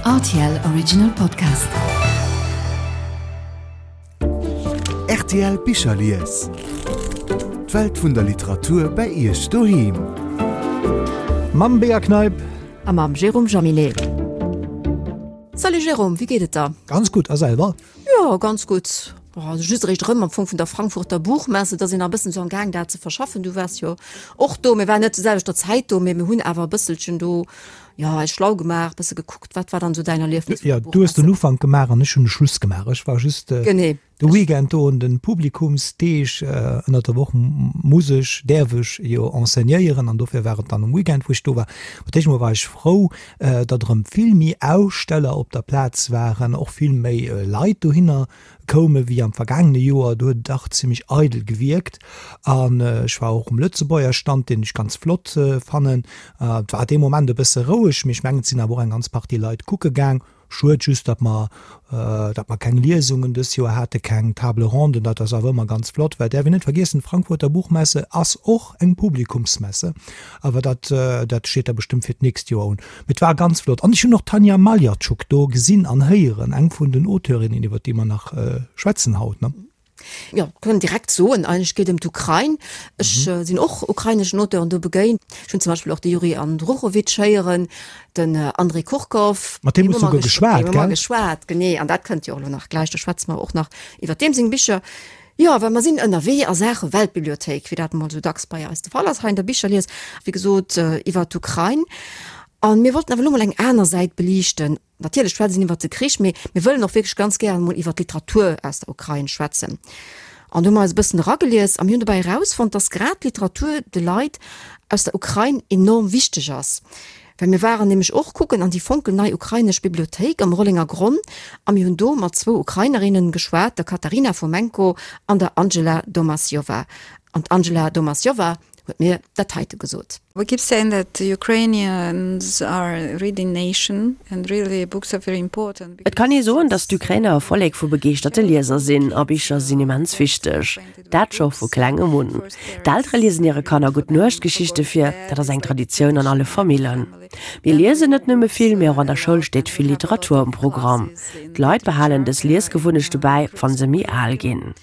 Rtl Original Podcast. Rtl Bicherlies. D'Welt vun der Literatur bei Iech doheem. Mam Bea Kneip. A mam Jérôme Jaminet. Salut Jérôme, wéi geet et der? Ganz gutt, a selwer? Jo, ganz gutt. Also just eréischt erëm am Fong vun der Frankfurter Buchmesse, et ass een nach e bëssen esou am Gaang dat ze verschaffen. Du waars jo och do, mir waren net zur selwechter Zäit do, mee mir hunn awer e bësselchen do, jo, eis schlau gemaach, e bësse gekuckt. Wat war dann esou däin Erliefnis vun der Buchmesse? Jo, du hues den Ufank gemaach an ech hunn de Schluss gemaach. Ech war just Genee. de Weekend do un de Publikumsdeeg. Ënnert der Woch muss ech, däerf ech jo enseignéieren an dofir war et dann um Weekend, wou ech do war. Fir d'éischt emol war ech frou, datt erëm vill méi Aussteller op der Plaz waren, och vill méi Leit dohinner koume wéi am vergaangene Joer. Do huet et dach zimmlech eidel gewierkt. An ech war och um Lëtzebuerger Stand, deen ech ganz flott fannen. Et war dee Moment e bësse roueg, mee ech mengen, et sinn awer och eng ganz Partie Leit kucke gaang. Schued just, datt mer, datt mer keng Liesungen dës Joer hate, keng Table ronden. Dat ass awer ëmmer ganz flott, well däerf een net vergiessen, d'Frankfurter Buchmesse ass och eng Publikumsmesse. Awer dat, dat steet da bestëmmt fir d'nächst Joer un. Mee et war ganz flott. An ech hunn och d'Tanja Maljatschuk do gesinn an héieren, eng vun den Auteurinnen, iwwer déi mer nach schwätzen haut, ne? Jo, kënnen direkt soen, eigentlech geet ëm d'Ukrain. Ech sinn och ukraineschen Auteuren do begéint. Ech hunn zum Beispill och de Juri Andruchowitsch héieren, den Andrij Kurkow. Mat deem hues du souguer geschwat, gell? Mat deem hu mer geschwat, genee. An dat kënnt jo och elo nach gläich, do schwätze mer och nach iwwer deem seng Bicher. Jo, well mer sinn ënnerwee a Saache Weltbibliothéik, wéi dat emol esou dacks bei eis de Fall ass hei an der Bicherlies, wéi gesot iwwer d'Ukrain. A mir wollten awer elo mol eng aner Säit beliichten. Natierlech schwätze een iwwert de Krich, mee mir wëllen och wierklech ganz gären emol iwwert d'Literatur aus der Ukrain schwätzen. An do hu mer eis e bëssen eragelies a mir hunn dobäi erausfonnt, dass grad d'Literatur de Leit aus der Ukrain enorm wichteg ass. Well mir waren nämlech och kucken an déi fonkelnei ukrainesch Bibliothéik am Rollenger Gronn a mir hunn do mat zwou Ukrainerinnen geschwat, der Katarina Fomenko an der Angela Domasjova. An d'Angela Domasjova huet mir dat heite gesot. We keep saying that Ukrainians are a reading nation and really books are very important. Et kann ee soen, datt d'Ukrainer e Vollek vu begeeschterte Lieser sinn a Bicher sinn immens wichteg. Dat scho vu klengem un. D'Eltere liesen hire Kanner Gutt-Nuecht-Geschichte vir, dat ass eng Traditioun an alle Famillen. Mir liesen net nëmme vill, mee och an der Schoul steet vill Literatur um Programm. D'Leit behalen dës Liesgewunnechte bäi, wa se méi al ginn.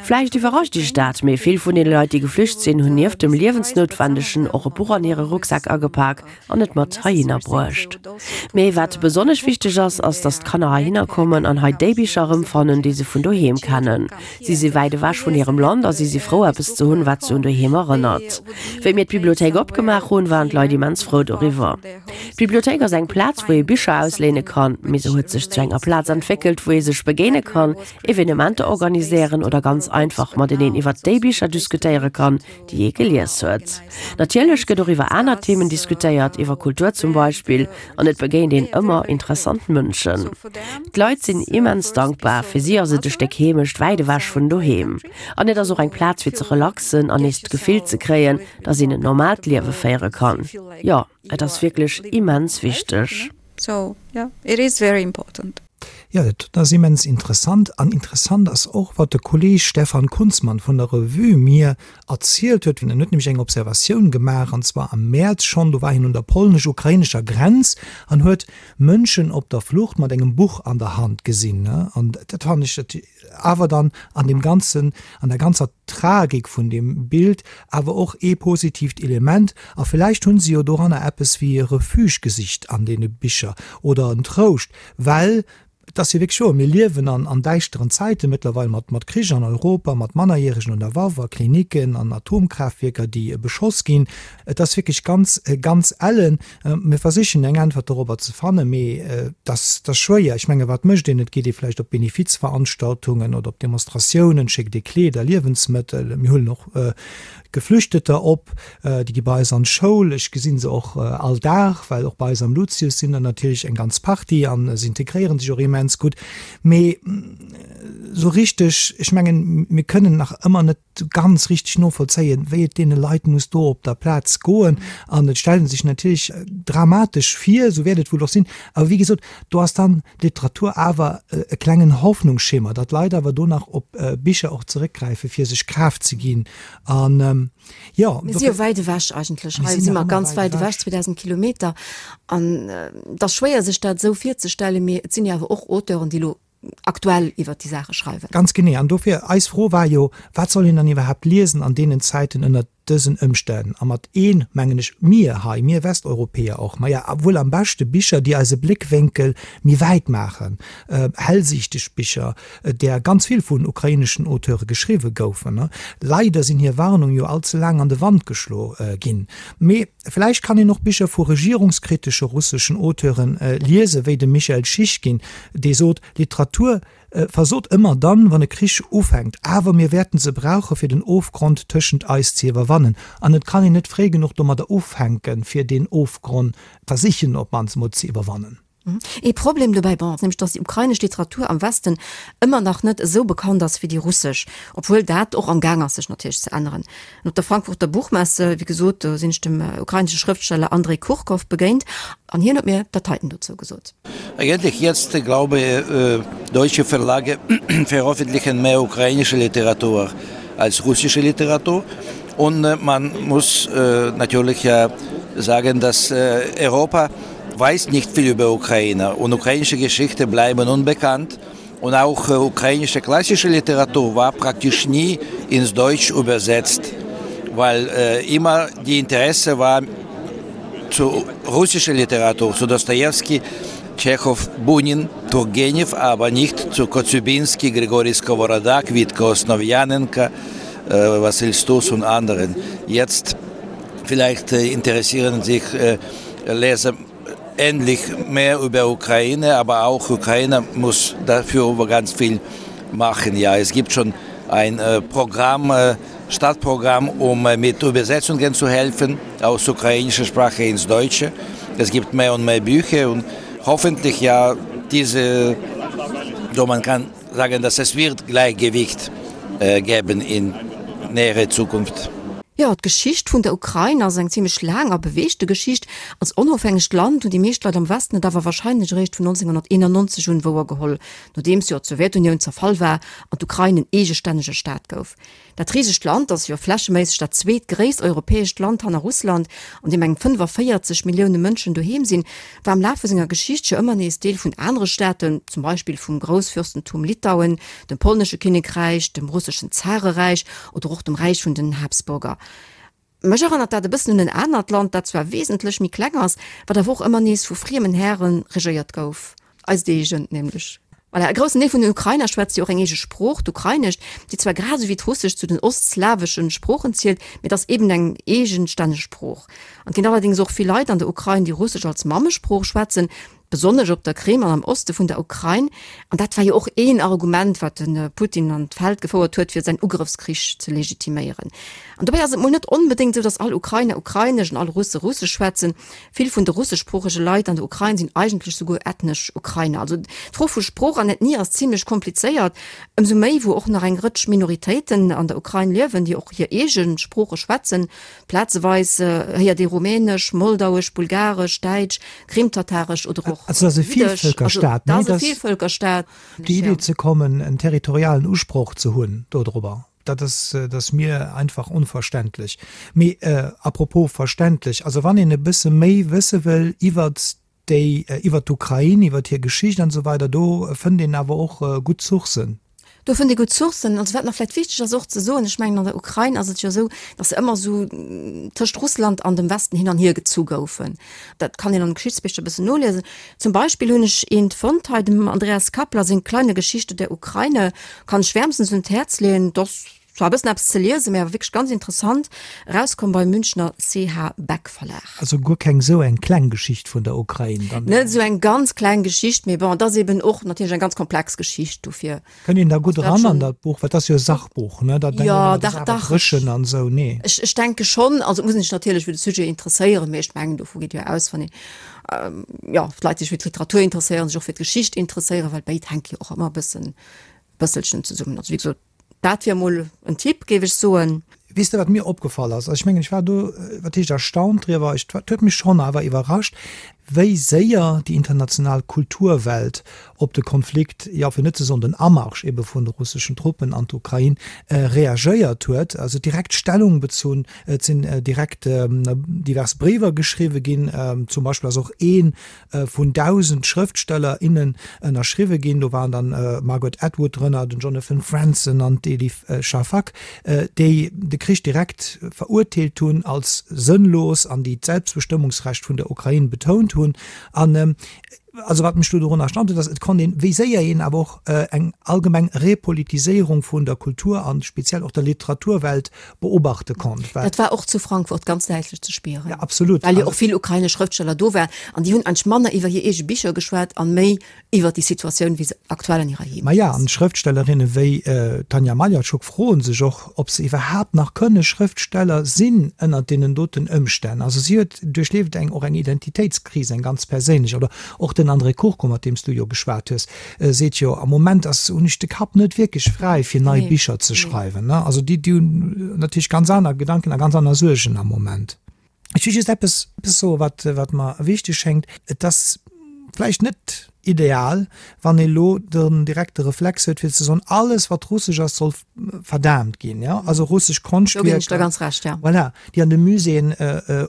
Vläicht iwwerrascht Iech dat, mee vill vun deene Leit, déi geflücht sinn, hunn nieft dem Liewensnoutwendegen och e Buch an hire Rucksak agepak an et mat heihinner bruecht. Mee wat besonnesch wichteg ass, ass, datt d'Kanner heihinner kommen an hei déi Bicher erëmfannen, déi se vun doheem kennen. Si si wäit ewech vun hirem Land a si si frou, eppes ze hunn, wat se un doheem erënnert. Wéi mir d'Bibliothéik opgemaach hunn, waren d'Leit immens frou doriwwer. D'Bibliothéik ass eng Plaz, wou ee Bicher ausléine kann, mee se huet sech zu enger Plaz entwéckelt, wou ee sech begéine kann, Evenementer organiséieren oder ganz einfach mateneen iwwert déi Bicher diskutéiere kann, déi ee gelies huet. Natierlech gëtt och iwwer aner Themen diskutéiert, iwwer Kultur zum Beispill, an et begéint een ëmmer interessant Mënschen. D'Leit sinn immens dankbar, fir si ass et e Stéck Heemecht wäit ewech vun doheem. An et ass och eng Plaz fir ze relaxen an nees d'Gefill ze kréien, dass een en normaalt Liewe féiere kann. Jo, et ass wierklech immens wichteg. So yeah, it is very important. Jo, dat ass immens interessant. An interessant ass och, wat de Kolleeg Stefan Kunzmann vun der Revue mir erzielt huet. En huet nämlech eng Observatioun gemaach, an zwar am Mäerz schonn, do war hien un der polnesch-ukrainescher Grenz an huet Mënschen op der Flucht mat engem Buch an der Hand gesinn. An dat fannen ech awer dann an deem ganzen, an der ganzer Tragik vun deem Bild awer och ee positiivt Element. A villäicht hu se jo doranner eppes wéi e Refuge gesicht an deene Bicher oder en Trouscht, well et ass jo wierklech wouer, mir liewen an an däischteren Zäite mëttlerweil mat mat Krich an Europa, mat Mannerjäregen un der Waff a Kliniken an Atomkraaftwierker, déi beschoss ginn. Et ass wierklech ganz, ganz ellen. Mir versichen eng Äntwert dorobber ze fannen, mee et ass schwéier. Ech menge wat mécht een? Et geet ee vläicht op Benefizveranstaltungen oder op Demonstratiounen, schéckt ee Kleeder, Liewensmëttel. Mir huelen och Geflüchteter op, déi gi bei eis an d'Schoul. Ech gesi se och all Dag, well och bei eis am Lucius sinn der natierlech eng ganz Partie a se integréiere sech och immens gutt. Mee esou richteg, ech mengen, mir kënnen nach ëmmer net. ganz richteg novollzéien, wéi et deene Leit muss do op der Plaz goen. An et stellt ee sech natierlech dramatesch vir, esou wäert et wuel och sinn. Awer wéi gesot, do ass dann d'Literatur awer e klengen Hoffnungsschimmer, datt d'Leit awer do nach op Bicher och zeréckgräifen, fir sech Kraaft ze ginn. An jo, Mir si jo wäit ewech eigentlech. Hei si mer ganz wäit ewech, 2.000 Kilometer. An et ass schwéier, sech dat esou virzestellen, mee et sinn jo awer och Auteuren, déi elo aktuell iwwert déi Saache schreiwen. Ganz genee. An dofir, eis Fro war jo, Wat soll een dann iwwerhaapt liesen an deenen Zäiten ënnert dësen Ëmstänn? A mat een mengen ech mir hei, mir Westeuropäer och. Maja, wuel am beschte Bicher, déi eise Bléckwénkel méi wäit maachen, hellsiichteg Bicher, där ganz vill vun ukraineschen Auteure geschriwwe goufen. Leider sinn hir Warnung jo all ze laang an de Wand geschlo ginn. Mee vläicht kann een och Bicher vu regierungskritesche russeschen Auteuren liesen, wéi dem Michael Schischkin, dee sot, Literatur versot ëmmer dann, wann e Krich ufänkt, awer mir wäerten se brauche fir den Ofgrond tëschent eis ze iwwerwannen. An et kann een net fréi genuch domadder ufänken, fir deen Ofgronn versichen op d'mannst emol ze iwwerwannen. Ee Problem dobäi, bon, ass nämlech, datt déi ukrainesch Literatur am Westen ëmmer nach net esou bekannt ass wéi déi russesch, obwuel dat och am Gaang ass sech natierlech ze änneren. An op der Frankfurter Buchmesse, wéi gesot, do sinn ech dem ukrainesche Schrëftsteller Andrei Kurkow begéint an hien huet mir dat heiten dozou gesot. Eigentlich jetzt, glaube deutsche Verlage veröffentlichen mehr ukrainische Literatur als russische Literatur und man muss natürlich sagen, dass Europa weiß nicht viel über Ukraine und ukrainische Geschichte bleiben unbekannt und auch ukrainische klassische Literatur war praktisch nie ins Deutsch übersetzt, weil äh, immer die Interesse war zu russischer Literatur, zu Dostoevsky, Tschechow, Bunin, Turgenev, aber nicht zu Kotzubinski, Grigori Skovorodak, Witko Osnowianenko, äh, Vasil Stus und anderen. Jetzt vielleicht äh, interessieren sich äh, Leser endlich mehr über Ukraine, aber auch Ukraine muss dafür ganz viel machen. Ja, es gibt schon ein äh, Programm, äh, Stadtprogramm, um äh, mit Übersetzungen zu helfen aus ukrainischer Sprache ins Deutsche. Es gibt mehr und mehr Bücher und hoffentlich ja diese, so man kann sagen, dass es wird Gleichgewicht äh, geben in nähere Zukunft. Jo, d'Geschicht vun der Ukrain ass eng zimmlech laang a beweegte Geschicht. Als onofhängegt Land hunn déi meescht Leit am Westen et awer warscheinlech eréischt vun 1991 un wouergeholl, nodeems jo d'Sowjetunioun zerfall war an d'Ukrain en eegestännege Staat gouf. Dat risegt Land ass jo flächeméisseg dat zweetgréisst europäescht Land hanner Russland, an deem eng 45 Millioune Mënschen doheem sinn, war am Laf vu senger Geschicht jo ëmmer nees Deel vun anere Staaten, zum Beispill vum Groussfürstentum Litauen, dem polnesche Kinnekräich, dem russeschen Zareräich oder och dem Räich vun den Habsburger. Mech erënnert dat e bëssen un en anert Land, dat zwar wesentlech méi kleng ass, wat awer och ëmmer nees vu friemen Häre regéiert gouf, eist eegent nämlech. Voilà, e groussen Deel vun den Ukrainer schwätzt jo och eng eege Sprooch, d'Ukrainescht, déi zwar grad esou wéi d'Russescht zu den ostslaweschen Sproochen zielt, mee et ass eben eng eegenstänneg Sprooch. An et ginn allerdéngs och vill Leit an der Ukrain, déi Russesch als Mammesprooch schwätzen, besonnesch op der Krim an am Oste vun der Ukrain. An dat war jo och een Argument, wat de Putin an d'Feld gefouert huet, fir säin Ugrëffskrich ze legitiméieren. An dobäi ass et mol net onbedéngt esou, datt all Ukrainer Ukrainesch an all Russe Russesch schwätzen. Vill vun de russeschsproochege Leit an der Ukrain sinn eigentlech souguer ethnesch Ukrainer. Also d'Fro vu Sprooch an Ethnie ass zimlech komplizéiert, ëmsou méi wou och nach eng Rëtsch Minoritéiten an der Ukrain liewen, déi och hir eege Sprooche schwätzen. Plazeweis héiert ee Rumänesch, Moldauesch, Bulgaresch, Däitsch, Krimtataresch oder och Also dat ass e Jiddesch. Also Vielvölkerstaat, dat ass e Vielvölkerstaat. Op déi Idee ze kommen, en territorialen Usproch ze hunn dodrobber, dat ass, dat ass mir einfach onverständlech. Mee à propos verständlech, also wann een e bësse méi wësse wëll iwwert déi iwwert d'Ukrain, iwwert hir Geschicht an esou weider, do fënnt een awer och gutt Sourcen. Do fënnt ee gutt Sourcen. Also wat nach vläicht wichteg ass och ze soen, ech mengen an der Ukrain ass et jo esou, datt se ëmmer esou tëscht Russland an dem Westen hin an hier gezu goufen. Dat kann een an de Geschichtsbicher e bëssen noliesen. Zum Beispill hunn ech eent fonnt hei, dem Andreas Kappler seng Kleine Geschichte der Ukraine, kann ech wärmstens un d'Häerz leeën. Dat ass zwar e bëssen eppes ze liesen, mä awer wierklech ganz interessant, erauskomm beim Münchner CH Beck Verlag. Also guer keng esou eng kleng Geschicht vun der Ukrain dann? Net esou eng ganz kleng Geschicht, mee bon, et ass eben och natierlech eng ganz komplex Geschicht, dofir. Kënnt een da gutt eran an dat Buch? Well et ass jo e Sachbuch, ne? Da denkt een Jo, ëmmer, dat dach, ass awer dach. dréchen an esou, nee? Ech, ech denke schonn. Also et muss een sech natierlech fir de Sujet interesséieren, mee ech mengen, dovu geet jo aus, wann een, jo, d'Leit sech fir d'Literatur interesséieren, sech och fir d'Geschicht interesséieren, well béid hänke jo och ëmmer e bëssen, bësselchen zesummen. Also wéi gesot. Dat wier emol en Tipp, géif ech soen. Weess de, wat mir opgefall ass? Also ech mengen, ech war do, wat heescht erstaunt driwwer, ech, et huet mech schonn awer iwwerrascht, wéi séier déi international Kulturwelt op de Konflikt, jo, fir net ze soen den Amarsch ebe vun de russeschen Truppen an d'Ukrain, reagéiert huet. Also direkt Stellung bezunn, et sinn direkt divers Bréiwer geschriwwe ginn, zum Beispill ass och ee vun 1.000 Schrëftsteller, innen ënnerschriwwe ginn. Do waren dann d'Margaret Atwood drënner, den Jonathan Franzen an d'Elif Shafak, déi de Krich direkt verurteelt hunn als sënnlos an déi d'Selbstbestëmmungsrecht vun der Ukrain betount hunn. An also wat mech do dorun erstaunt huet, ass, et konnt een, wéi séier een awer och eng allgemeng Repolitiséierung vun der Kultur an speziell och der Literaturwelt beobachte konnt. Dat war och zu Frankfurt ganz däitlech ze spieren. Ja, absolut. Well jo och vill ukrainesch Schrëftsteller do waren an déi hunn eigentlech manner iwwer hir eege Bicher geschwat an méi iwwer déi Situatioun, wéi se aktuell an hirer Heemecht ass. Maja, an Schrëftstellerinne wéi d'Tanja Maljatschuk froe sech och, ob se iwwerhaapt nach kënne Schrëftsteller sinn ënnert deenen doten Ëmstänn. Also si huet duerchlieft eng och eng Identitéitskris, eng ganz perséinlech. Oder och den André Kurko, mat deem s du jo geschwat hues, seet jo, am Moment ass, hunn ech de Kapp net wierklech fräi fir nei Bicher ze schreiwen. Also déi hunn natierlech ganz aner Gedanken a ganz aner Suergen am Moment. Ech wëll just eppes soen, wat, wat mer wichteg schéngt. Et ass vläicht net ideal, wann ee lo den direkte Reflex huet, fir ze soen, alles wat russesch ass, soll verdaamt ginn, jo, also russesch Konschtwierker. Do ginn ech der ganz Recht, ja. Voilà, déi an de Muséeën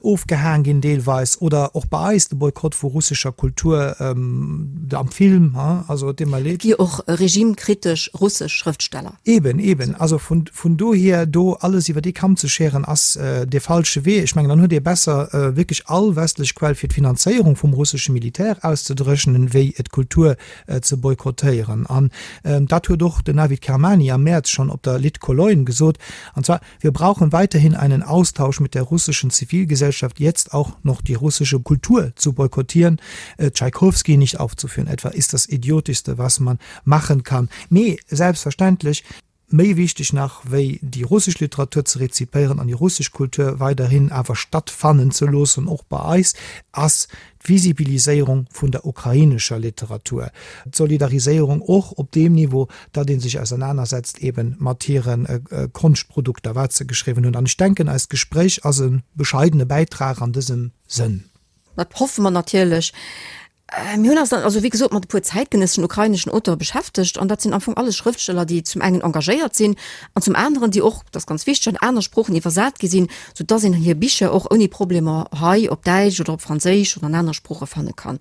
ofgehaang ginn deelweis, oder och bei eis de Boykott vu russescher Kultur am Film, also et deet mer leed. Et gi jo och regimekritesch russesch Schrëftsteller. Eben, eben. Also vun, vun dohier do alles iwwer ee Kamm ze scheren, ass dee falsche Wee. Ech mengen, dann huet ee besser wierklech all westlech Quell fir d'Finanzéierung vum russesche Militär auszedréchnen, wéi d'Kultur ze boykottéieren. An dat huet och den Navid Kermani am Mäerz schonn op der Lit Cologne gesot, an zwar, Wir brauchen weiterhin einen Austausch mit der russischen Zivilgesellschaft, jetzt auch noch die russische Kultur zu boykottieren, Tschaikowski nicht aufzuführen etwa, ist das Idiotischste, was man machen kann. Mee selbstverständlech, Méi wichteg nach wéi déi russesch Literatur ze rezipéieren an déi russesch Kultur weiderhin awer stattfannen ze loossen, och bei eis, ass d'Visibiliséierung vun der ukrainescher Literatur, d'Solidariséierung och op deem Niveau, datt ee sech ausernanersetzt eebe mat hire Konschtprodukter, wat se geschriwwen hunn. An ech denken, eist Gespréich ass e bescheidene Bäitrag an dësem Sënn. Dat hoffe mer natierlech. Mir hunn eis dann also wéi gesot mat e puer zäitgenësseschen ukraineschen Auteure beschäftegt an dat sinn am Fong alles Schrëftsteller, déi zum engen engagéiert sinn an zum aneren, déi och, dat ass ganz wichteg, an aner Sproochen iwwersat gi sinn, sou dass een hir Bicher och ouni Problemer hei op Däitsch oder op Franséisch oder an anere Sprooche fanne kann.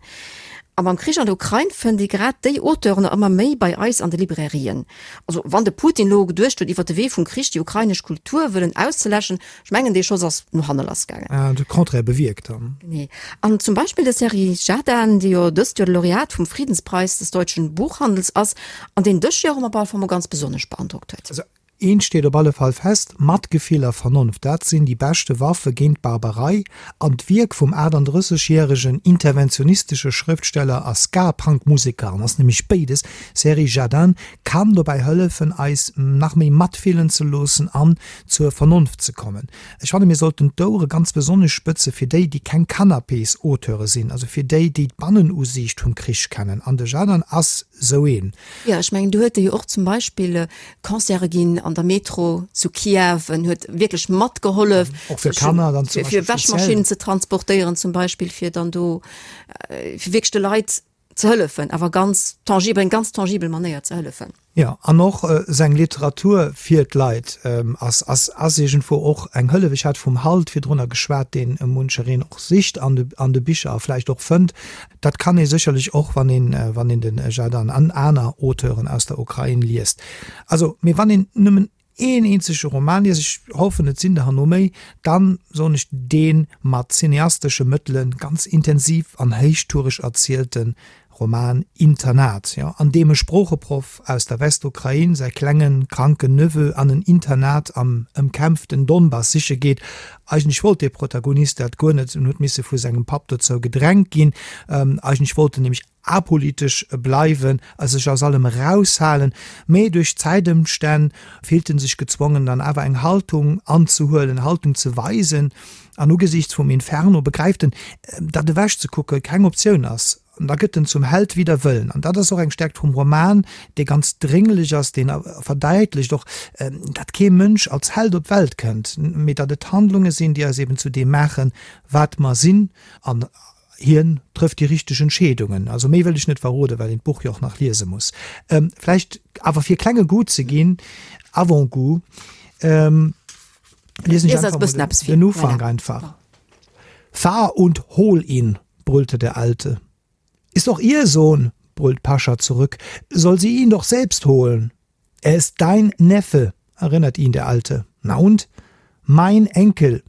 A mam Krich an der Ukrain fënnt ee grad déi Auteuren ëmmer méi bei eis an de Librairien. Also wann de Putin elo geduecht huet, iwwer de Wee vum Krich déi ukrainesch Kultur wëllen auszeläschen, Ech mengen, dee Schoss ass no hanne lass gaangen. De Contraire bewierkt dann. Genee. An zum Beispill de Serhij Zhadan, dee jo dëst Joer de Laureat vum Friedenspreis des deutschen Buchhandels ass, an deen dës Joer op alle Fall mol ganz besonnesch beandrockt huet. Also eent steet op alle Fall fest, Matgefill a Vernonft, dat sinn déi beschte Waffe géint d'Barbarei. An d'Wierk vum 38 järegen interventionistesche Schrëftsteller a Ska-Punk-Museker, en ass nämlech béides, Serhij Zhadan, kann dobäi hëllefen, eis nach méi matfillen ze loossen an zur Vernonft ze kommen. Ech fanne mir sollten d'Ouere ganz besonnesch spëtze fir déi, déi keng Canapés-Auteure sinn, also fir déi, déi d'Bannenusiicht vum Krich kennen. An de Zhadan ass sou een. Jo, ech mengen, do huet e jo och zum Beispill Concerte ginn an der Metro zu Kiew. En huet wierklech matgehollef, Och fir Kanner dann zum Beispill fir Wäschmaschinnen ze transportéieren zum Beispill, fir dann do, fir wierklech de Leit ze hëllefen, awer ganz tangibel, eng ganz tangibel Manéier ze hëllefen. Jo, an och seng Literatur fir d'Leit ass, ass, ass iergendwou och eng Hëllef. Ech hat vum Halt virdrunner geschwat, deen munchereen och sicht an de, an de Bicher a vläicht och fënnt. Dat kann ee sécherlech och, wann een, wann een de Zhadan an aner Auteuren aus der Ukrain liest. Also, mee wann een nëmmen een eenzege Roman liest, ech hoffen et sinn der herno méi, dann soen ech dee mat cineastesche Mëttele ganz intensiv an héichtoureg erzielte Roman Internat, jo, an deem e Sproocheproff aus der Westukrain säi klengen, kranken Neveu an en Internat am ëmkämpften Donbass siche geet. Eigentlech wollt dee Protagonist dat guer net en huet misse vu sengem Papp dozou gedrängt ginn. Eigentlech wollt en nämlech apolitesch bleiwen a sech aus allem eraushalen, mee duerch d'Zäitëmstänn fillt en sech gezwongen dann awer eng Haltung anzehuelen, Haltung ze weisen an ugesiichts vum Inferno begräift en, datt ewech ze kucke keng Optioun ass. An da gëtt en zum Held wider Wëllen. An dat ass och eng Stärkt vum Roman, dee ganz drénglech ass, deen verdäitlecht och, datt kee Mënsch als Held op d'Welt kënnt, mee datt et Handlunge sinn, déi eis eben zu deem maachen, wat mer sinn. An hien trëfft déi richteg Entscheedungen. Also méi wëll ech net verroden, well een d'Buch jo och nach liese muss. Vläicht awer fir e klenge Goût ze ginn, Avant-goût, liesen ech einfach mol den Ufank einfach. Fahr und hol ihn! brüllte der Alte. Ist doch ihr Sohn, brüllt Pascha zurück, soll sie ihn doch selbst holen. Er ist dein Neffe, erinnert ihn der Alte. Na und? Mein Enkel!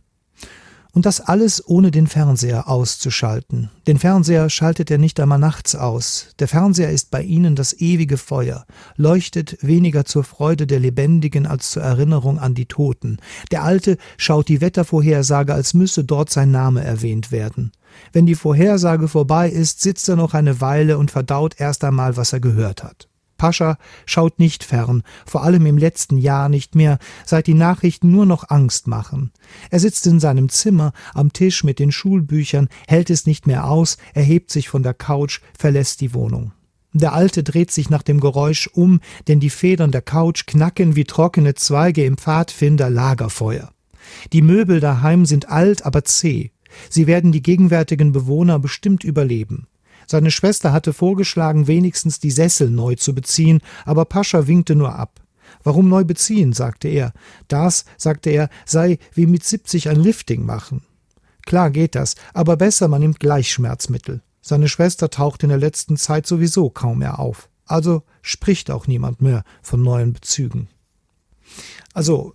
Und das alles ohne den Fernseher auszuschalten. Den Fernseher schaltet er nicht einmal nachts aus. Der Fernseher ist bei ihnen das ewige Feuer, leuchtet weniger zur Freude der Lebendigen als zur Erinnerung an die Toten. Der Alte schaut die Wettervorhersage, als müsse dort sein Name erwähnt werden. Wenn die Vorhersage vorbei ist, sitzt er noch eine Weile und verdaut erst einmal, was er gehört hat. Pascha schaut nicht fern, vor allem im letzten Jahr nicht mehr, seit die Nachrichten nur noch Angst machen. Er sitzt in seinem Zimmer am Tisch mit den Schulbüchern, hält es nicht mehr aus, erhebt sich von der Couch, verlässt die Wohnung. Der Alte dreht sich nach dem Geräusch um, denn die Federn der Couch knacken wie trockene Zweige im Pfadfinder Lagerfeuer. Die Möbel daheim sind alt, aber zäh. Sie werden die gegenwärtigen Bewohner bestimmt überleben. Seine Schwester hatte vorgeschlagen, wenigstens die Sessel neu zu beziehen, aber Pascha winkte nur ab. Warum neu beziehen, sagte er. Das, sagte er, sei wie mit 70 ein Lifting machen. Klar geht das, aber besser man nimmt gleich Schmerzmittel. Seine Schwester taucht in der letzten Zeit sowieso kaum mehr auf. Also spricht auch niemand mehr von neuen Bezügen. Also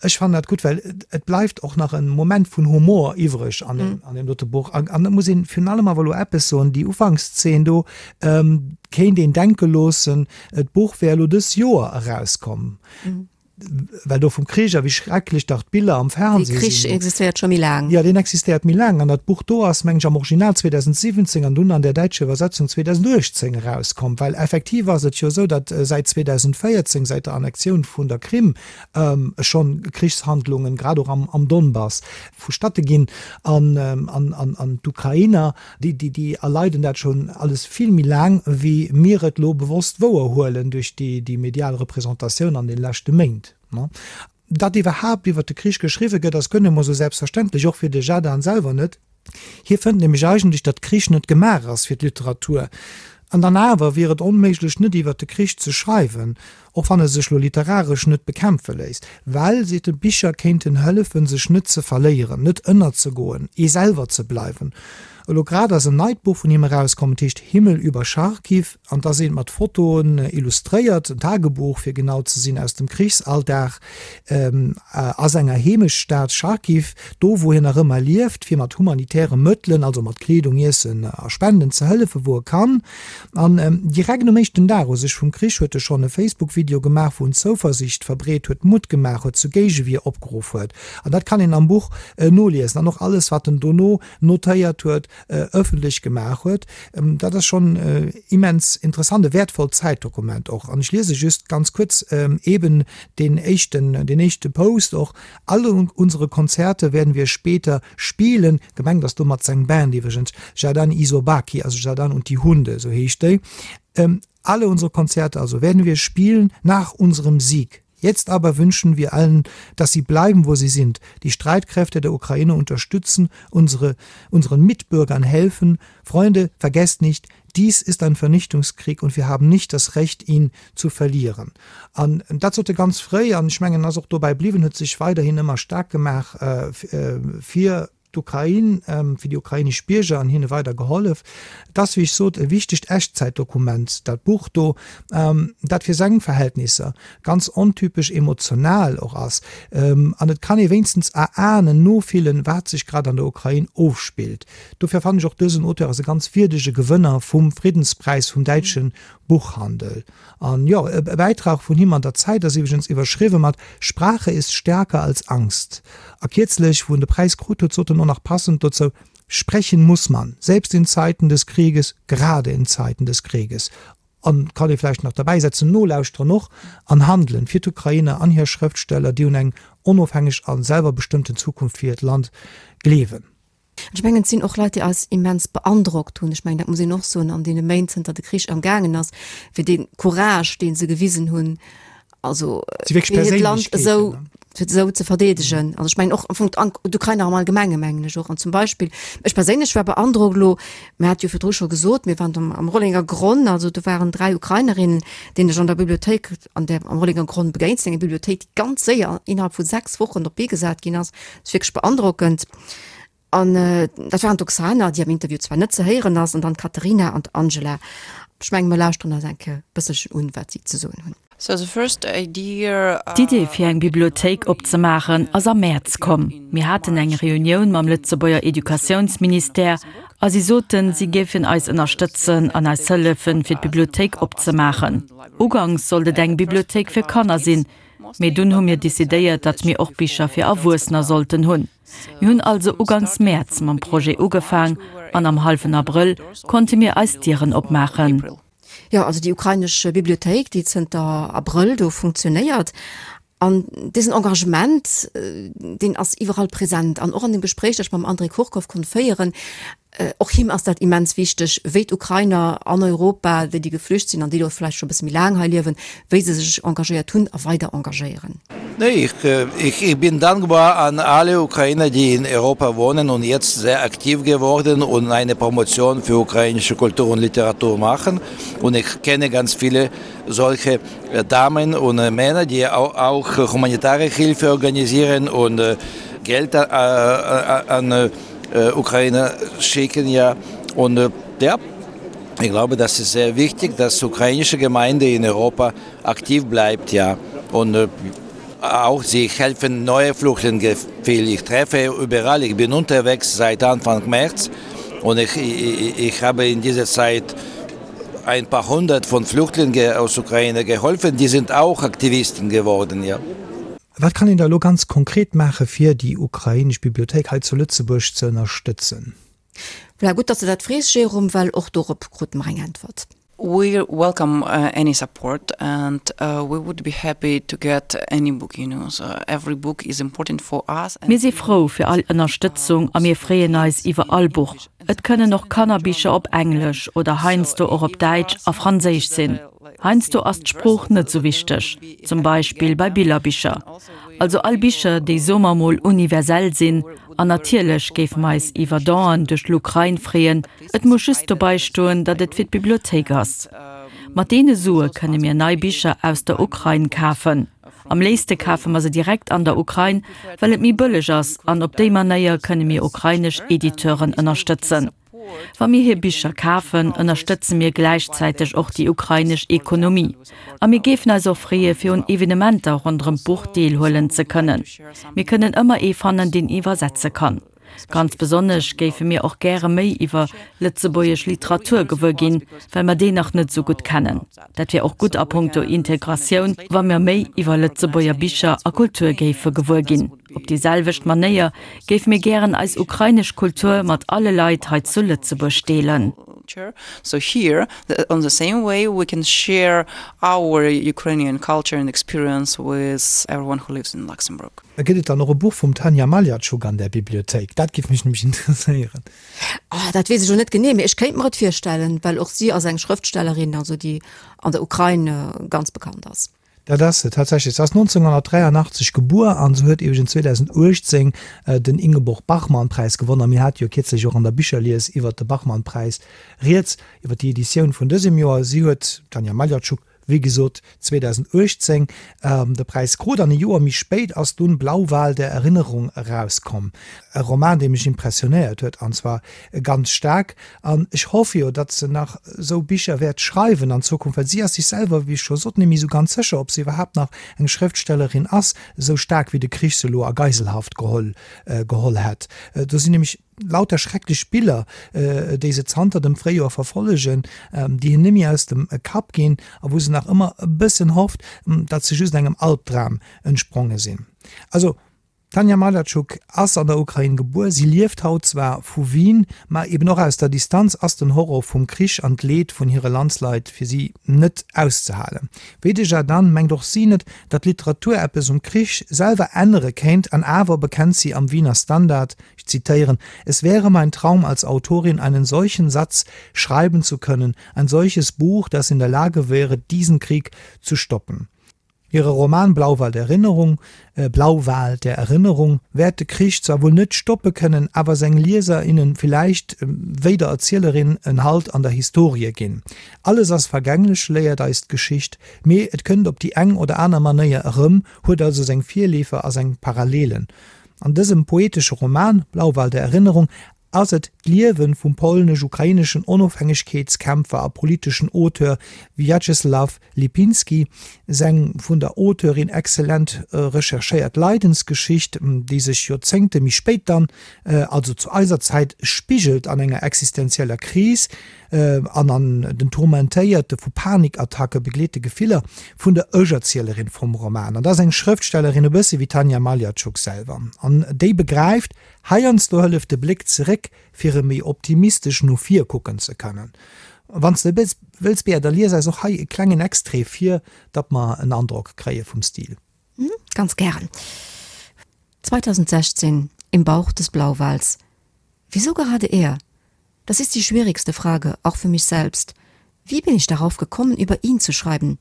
ech fannen dat gutt, well et bleift och nach en Moment vun Humor iwwreg an deem, an deem dote Buch. An, an da muss een virun allem awer elo eppes soen, déi Ufankszeen do kéint een denke loossen, d'Buch wär elo dës Joer erauskomm, well do vum Krich a wéi schrecklech dach d'Biller am Fernseh sinn. Dee Krich existéiert scho méi laang. Jo, deen existéiert méi laang. An dat Buch do ass, meng ech, am Original 2017 an dunn an där däitscher Iwwersetzung 2018 erauskomm. Well effektiv ass et jo esou, datt säit 2014, säit der Annexioun vun der Krim, schonn Krichshandlungen, grad och am Donbass, vustatte ginn. An d'Ukrainer, déi erleiden dat schonn alles vill méi laang, wéi mir et elo bewosst wouerhuelen duerch déi medial Representatioun an de leschte Méint. Datt iwwerhaapt iwwer de Krich geschriwwe gëtt, ass guer net emol esou selbstverständlech, och fir de Zhadan selwer net. Hie fënnt nämlech eigentlech, datt Krich net gemaach ass fir d'Literatur. An dann awer wier et onméiglech, net iwwer de Krich ze schreiwen, och wann e sech lo literaresch net bekämpfe léisst. Well, seet e, Bicher kéinten hëllefen, sech net ze verléieren, net ënnerzegoen, ee selwer ze bleiwen. Elo grad ass en neit Buch vun him erauskomm, et heescht Himmel über Charkiw. An da sinn mat Fotoen illustréiert, en Tagebuch fir genau ze sinn, aus dem Krichsalldag a senger Heemechtsstad Charkiw, do wou hien nach ëmmer lieft, fir mat humanitäre Mëttelen, also mat Kleedung, Iessen a Spenden ze hëllefen, wou e kann. An direkt um éischten Dag u sech vum Krich huet e schonn e Facebook-Video gemaach, wou en Zouversiicht verbreet huet, Mutt gemaach huet, zu Géigewier opgeruff huet. An dat kann een am Buch noliesen. An och alles, wat en dono notéiert huet, ëffentlech gemaach huet. Dat ass schonn immens interessant, e wäertvollt Zäitdokument och. An ech liese just ganz kuerz eeben deen éischten, deen éischte Post och, Alle unsere Konzerte werden wir später spielen. Gemengt ass domat seng Band iwwregens, Zhadan i Sobaki, also Zhadan und die Hunde, esou heescht déi. Alle unsere Konzerte also werden wir spielen nach unserem Sieg. Jetzt aber wünschen wir allen, dass sie bleiben, wo sie sind, die Streitkräfte der Ukraine unterstützen, unsere, unseren Mitbürgern helfen. Freunde, vergesst nicht, dies ist ein Vernichtungskrieg und wir haben nicht das Recht, ihn zu verlieren. An dat sot e ganz fréi, an ech mengen, en ass och dobäi bliwwen, huet sech weiderhin ëmmer staark gemaach fir d'Ukrain, fir déi ukrainesch Bierger an hinne weider gehollef. Et ass, wéi ech sot, e wichtegt Echtzäitdokument, dat Buch do, dat fir seng Verhältnisser ganz ontypesch emotional och ass. An et kann ee wéinstens erahnen, nofillen, wat sech grad an der Ukrain ofspillt. Dofir fannen ech och, dësen Auteur ass e ganz wierdege Gewënner vum Friddenspräis vum däitsche Buchhandel. An jo, e Bäitrag vun him an der Zeit ass iwwregens iwwerschriwwe mat Sprache ist stärker als Angst. A kierzlech, wou en de Präis krut huet, sot en och nach passend dozou, Sprechen muss man, selbst in Zeiten des Krieges, gerade in Zeiten des Krieges. An, kann ee vläicht nach derbäisetzen, nolauschteren och an handelen fir d'Ukrainer an hir Schrëftsteller, déi un eng onofhängeg a selwerbestëmmten Zukunft fir hiert Land gleewen. Ech mengen, et sinn och Leit, déi eis immens beandrockt hunn. Ech mengen, dat muss een och soen, an deene Méint, zënter de Krich amgaangen ass, fir dee Courage, dee se gewisen hunn, also fir hiert Land esou, fir esou ze verdeedegen. Also ech mengen och am Fong d'Ukrainer am Allgemenge mengen ech och. An zum Beispill, ech perséinlech war beandrockt elo, mir hat jo virdru scho gesot, mir waren am, am Rollenger Gronn, also do waren 3 Ukrainerinnen, deenen ech an der Bibliothéik an der, am Rollenger Gronn begéint sinn, eng Bibliothéik, déi ganz séier innerhalb vu 6 Wochen op d'Bee gesat ginn ass. Dat ass wierklech beandrockend. An dat waren d'Oksana, déi am Interview zwar net ze héieren ass, an dann d'Katerina an d'Angela. Ech menge mer lauschteren eis eng Kéier e bësselchen un, wat si ze soen hunn. D'Idee fir eng Bibliothéik opzemaachen ass am Mäerz komm. Mir haten eng Reunioun mam Lëtzebuerger Educatiounsministère a si soten, si géifen eis ënnerstëtzen an eis hëllefen, fir d'Bibliothéik opzemaachen. Uganks sollt et eng Bibliothéik fir Kanner sinn, mee dunn hu mir decidéiert, datt mir och Bicher fir Erwuessener sollten hunn. Mir hunn also uganks Mäerz mam Projet ugefaang an am hallwen Abrëll konnte mir eis Dieren opmaachen. Jo, also déi ukrainesch Bibliothéik, déi zënter Abrëll do funktionéiert. An dësen Engagement, deen ass iwwerall present an och an dem Gespréich, dat ech mam André Kurkow konnt féieren, Och him ass dat immens wichteg, wéi d'Ukrainer an Europa, déi déi geflücht sinn an déi elo vläicht scho e bësse méi laang hei liewen, wéi se sech engagéiert hunn a weider engagéieren. Nee, ich, ich, ich bin dankbar an alle Ukrainer, die in Europa wohnen und jetzt sehr aktiv geworden und eine Promotion für ukrainische Kultur und Literatur machen. Und ich kenne ganz viele solche Damen und Männer, die auch, auch humanitäre Hilfe organisieren und Geld an Ukraine schicken ja und ja ich glaube das ist sehr wichtig dass ukrainische Gemeinde in Europa aktiv bleibt ja und auch sie helfen neue Flüchtlinge viel ich treffe überall ich bin unterwegs seit Anfang März und ich, ich, ich habe in dieser Zeit ein paar hundert von Flüchtlingen aus Ukraine geholfen die sind auch Aktivisten geworden ja. Wat kann een da elo ganz konkret maache fir déi ukrainesch Bibliothéik hei zu Lëtzebuerg ze ënnerstëtzen? Voilà, gutt, datt s de dat frees, Jérôme, well och dorop krute mer eng Äntwert. We welcome any support and we would be happy to get any book, you know, so every book is important for us. Mir si frou fir all Ënnerstëtzung a mir freeën eis iwwer all Buch. Et kënnen och Kannerbicher op Englesch oder heiansdo och op Däitsch a Franséisch sinn. Heiansdo ass d'Sprooch net sou wichteg, zum Beispill bei Billerbicher. Also all Bicher, déi soe mer mol universell sinn. An natierlech géife mer eis iwwer Donen duerch l'Ukrain freeën, et muss just dobei stoen, datt et fir d'Bibliothéik ass. Mat deene Sue kënne mir nei Bicher aus der Ukrain kafen. Am léifste kafe mer se direkt an der Ukrain, well et méi bëlleg ass an op déi Manéier kënne mir ukrainesch Editeuren ënnerstëtzen. Wa mir hir Bicher kafen, ënnerstëtze mir gläichzäiteg och déi ukrainesch Ekonomie. A mir géifen eis och freeë fir un Evenementer ronderëm d'Buch deelhuelen ze kënnen. Mir kënnen ëmmer ee fannen, deen iwwersetze kann. Ganz besonnesch géife mir och gäre méi iwwer lëtzebuergesch Literatur gewuer ginn, well mer déi nach net esou gutt kennen. Dat wär och gutt a punkto Integratioun, wa mir méi iwwer Lëtzebuerger Bicher a Kultur géife gewuer ginn. Op déi selwecht Manéier géife mir gären eis ukrainesch Kultur mat alle Leit hei zu Lëtzebuerg deelen. So here, on the same way we can share our Ukrainian culture and experience with everyone who lives in Luxembourg. Gëtt et dann och e Buch vum Tanja Maljatschuk an där Bibliothéik? Dat géif mech nämlech interesséieren. Oh, dat weess ech elo net genee, mee ech kéint mer et virstellen, well och si ass eng Schrëftstellerin, also déi an der Ukrain ganz bekannt ass. Dat ass se tatsächlech. Se ass 1983 gebuer an se huet iwwregens 2018 den Ingeborg-Bachmann-Präis gewonnen. A mir hate jo kierzlech och an der Bicherlies iwwert de Bachmann-Präis rieds, iwwert déi Editioun vun dësem Joer. Si huet, d'Tanja Maljatschuk, wéi gesot 2018 de Präis krut an e Joer méi spéit ass dunn Blauwal der Erinnerung erauskomm. E Roman, dee mech impressionéiert huet an zwar ganz staark. An ech hoffe jo, datt se nach esou Bicher wäert schreiwen an Zukunft, well si ass sech selwer, wéi ech scho sot, net méi esou ganz sécher, ob se iwwerhaapt nach eng Schrëftstellerin ass, esou staark wéi de Krich se elo a Geiselhaft geholl geholl hätt. Do sinn nämlech lauter schrecklech Biller, déi se zanter dem Fréijoer verfollegen, déi hir net méi aus dem Kapp ginn a wou se nach ëmmer e bëssen hofft, datt se just engem Albdram entspronge sinn. Also. D'Tanja Maljatschuk ass an der Ukrain gebuer. Si lieft haut zwar vu Wien, ma eben och aus der Distanz ass den Horror vum Krich an d'Leed vun hire Landsleit fir si net auszehalen. Wéi de Zhadan mengt och si net, datt d'Literatur eppes um Krich selwer ännere kéint an awer bekennt si am Wiener Standard, ich zitéieren, Es wäre mein Traum als Autorin einen solchen Satz schreiben zu können, ein solches Buch, das in der Lage wäre, diesen Krieg zu stoppen. Hire Roman Blauwal der Erinnerung, Blauwal der Erinnerung wäert de Krich zwar wuel net stoppe kënnen, awer seng Lieser, innen villäicht, wéi der Erzielerin, en Halt an der Historie ginn. Alles ass vergänglech, léiert eis d'Geschicht, mee et kënnt op déi eng oder aner Manéier erëm, huet also seng Virleefer a seng Parallelen. An dësem poetesche Roman Blauwal der Erinnerung ass et d'Liewe vum polnesch-ukraineschen Onofhängegkeetskämpfer a politeschen Auteur Wjatscheslaw Lipinski, seng vun der Auteurin exzellent recherchéiert Leidensgeschicht, déi sech Joerzéngte méi spéit dann, also zu eiser Zäit, spigelt an enger existenzieller Kris an an den tourmentéierte, vu Panikattacke begleete Gefiller vun der Ech-Erzielerin vum Roman. An dat ass eng Schrëftstellerin, e bësse wéi d'Tanja Maljatschuk selwer, an déi begräift, Heiansdo hëlleft de Bléck zeréck, fir erëm méi optimistesch no vir kucken ze kënnen. Wann s de wëlls, Bea, da lies eis och hei e klengen Extrait vir, datt mer en Androck kréie vum Stil. Ganz gären. 2016 Im Bauch des Blauwals Wieso gerade er? Das ist die schwierigste Frage, auch für mich selbst. Wie bin ich darauf gekommen, über ihn zu schreiben?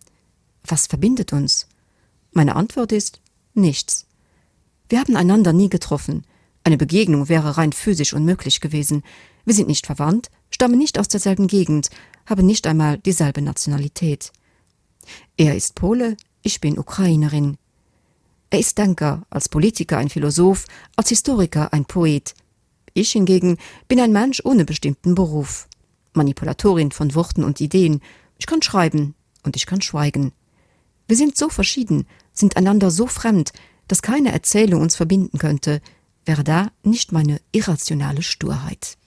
Was verbindet uns? Meine Antwort ist: Nichts. Wir haben einander nie getroffen. Eine Begegnung wäre rein physisch unmöglich gewesen. Wir sind nicht verwandt, stammen nicht aus derselben Gegend, haben nicht einmal dieselbe Nationalität. Er ist Pole, ich bin Ukrainerin. Er ist Denker, als Politiker ein Philosoph, als Historiker ein Poet. Ich hingegen bin ein Mensch ohne bestimmten Beruf. Manipulatorin von Worten und Ideen. Ich kann schreiben und ich kann schweigen. Wir sind so verschieden, sind einander so fremd, dass keine Erzählung uns verbinden könnte, wäre da nicht meine irrationale Sturheit.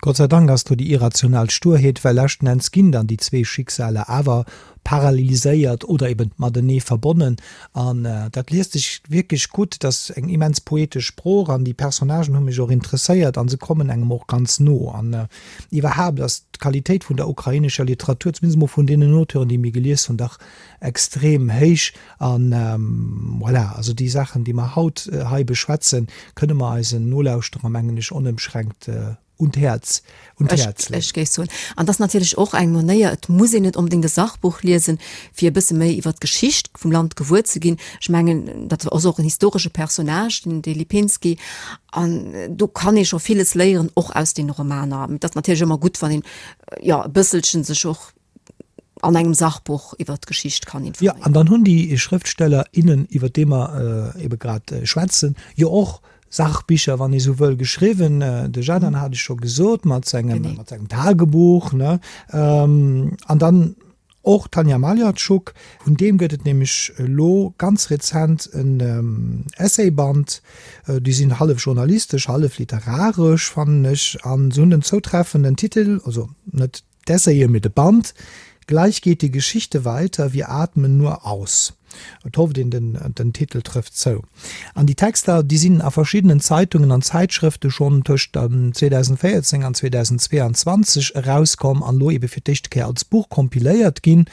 Gott sei Dank ass do déi irrational Sturheet, well leschten Enns ginn dann déi zwee Schicksaler awer paralleliséiert oder eben matenee verbonnen. An dat liest sech wierklech gutt. Et ass eng immens poetesch Sprooch an déi Personnagen hu mech och interesséiert a se kommen engem och ganz no. An iwwerhaapt ass d'Qualitéit vun der ukrainescher Literatur, zumindest emol vun deenen Auteuren, déi mir gelies hunn, dach extrem héich. An voilà, also déi Saachen, déi mer haut hei beschwätzen, kënne mer eisen Nolauschterer, mengen ech, onëmschränkt un d'Häerz, un d'Häerz leeën. Ech géif soen, an dat ass natierlech och eng Manéier, et muss een net onbedéngt e Sachbuch liesen, fir e bësse méi iwwer d'Geschicht vum Land gewuer ze ginn. Ech mengen, dat ass och en historesche Personnage, den de Lipinski, an do kann ee scho villes léieren, och aus deene Romaner. Mee et ass natierlech ëmmer gutt, wann een, jo, e bësselchen sech och an engem Sachbuch iwwer d'Geschicht kann informéieren. Jo, an dann hunn déi Schrëftsteller, innen, iwwer déi mer ebe grad schwätzen, jo och Sachbicher, wann ee sou wëll, geschriwwen. De Zhadan hat ech scho gesot, mat sengem, mat sengem Tagebuch, ne? An dann och d'Tanja Maljatschuk, vun deem gëtt et nämlech elo ganz rezent en Essayband, déi sinn hallef journalistesch, hallef literaresch, fannen ech, an se hunn den zoutreffenden Titel, also net D'Essaye mee de Band, Gleich geht die Geschichte weiter, wir atmen nur aus. Et hofft een, den den Titel trëfft zou. An déi Texter, déi sinn a verschiddenen Zeitungen an Zäitschrëfte schonn tëscht 2014 an 2022 erauskomm an elo ebe fir d'éischte Kéier als Buch kompiléiert ginn.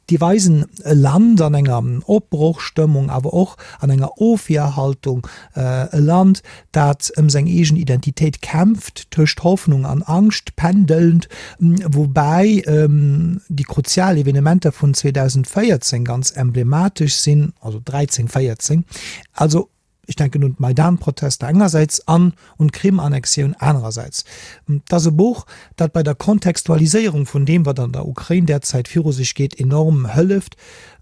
Déi weisen e Land an enger Opbrochstëmmung, awer och an enger Ofwierhaltung, e Land, dat ëm seng eegen Identitéit kämpft, tëscht Hoffnung an Angscht pendelnd, woubäi déi kruzial Evenementer vun 2014 ganz emblematesch sinn, also 13, 14, also Ech denken un d'Maidan-Protester engersäits an un d'Krim-Annexioun anerersäits. Et ass e Buch, dat bei der Kontextualiséierung vun deem, wat an der Ukrain derzäit viru sech geet, enorm hëlleft.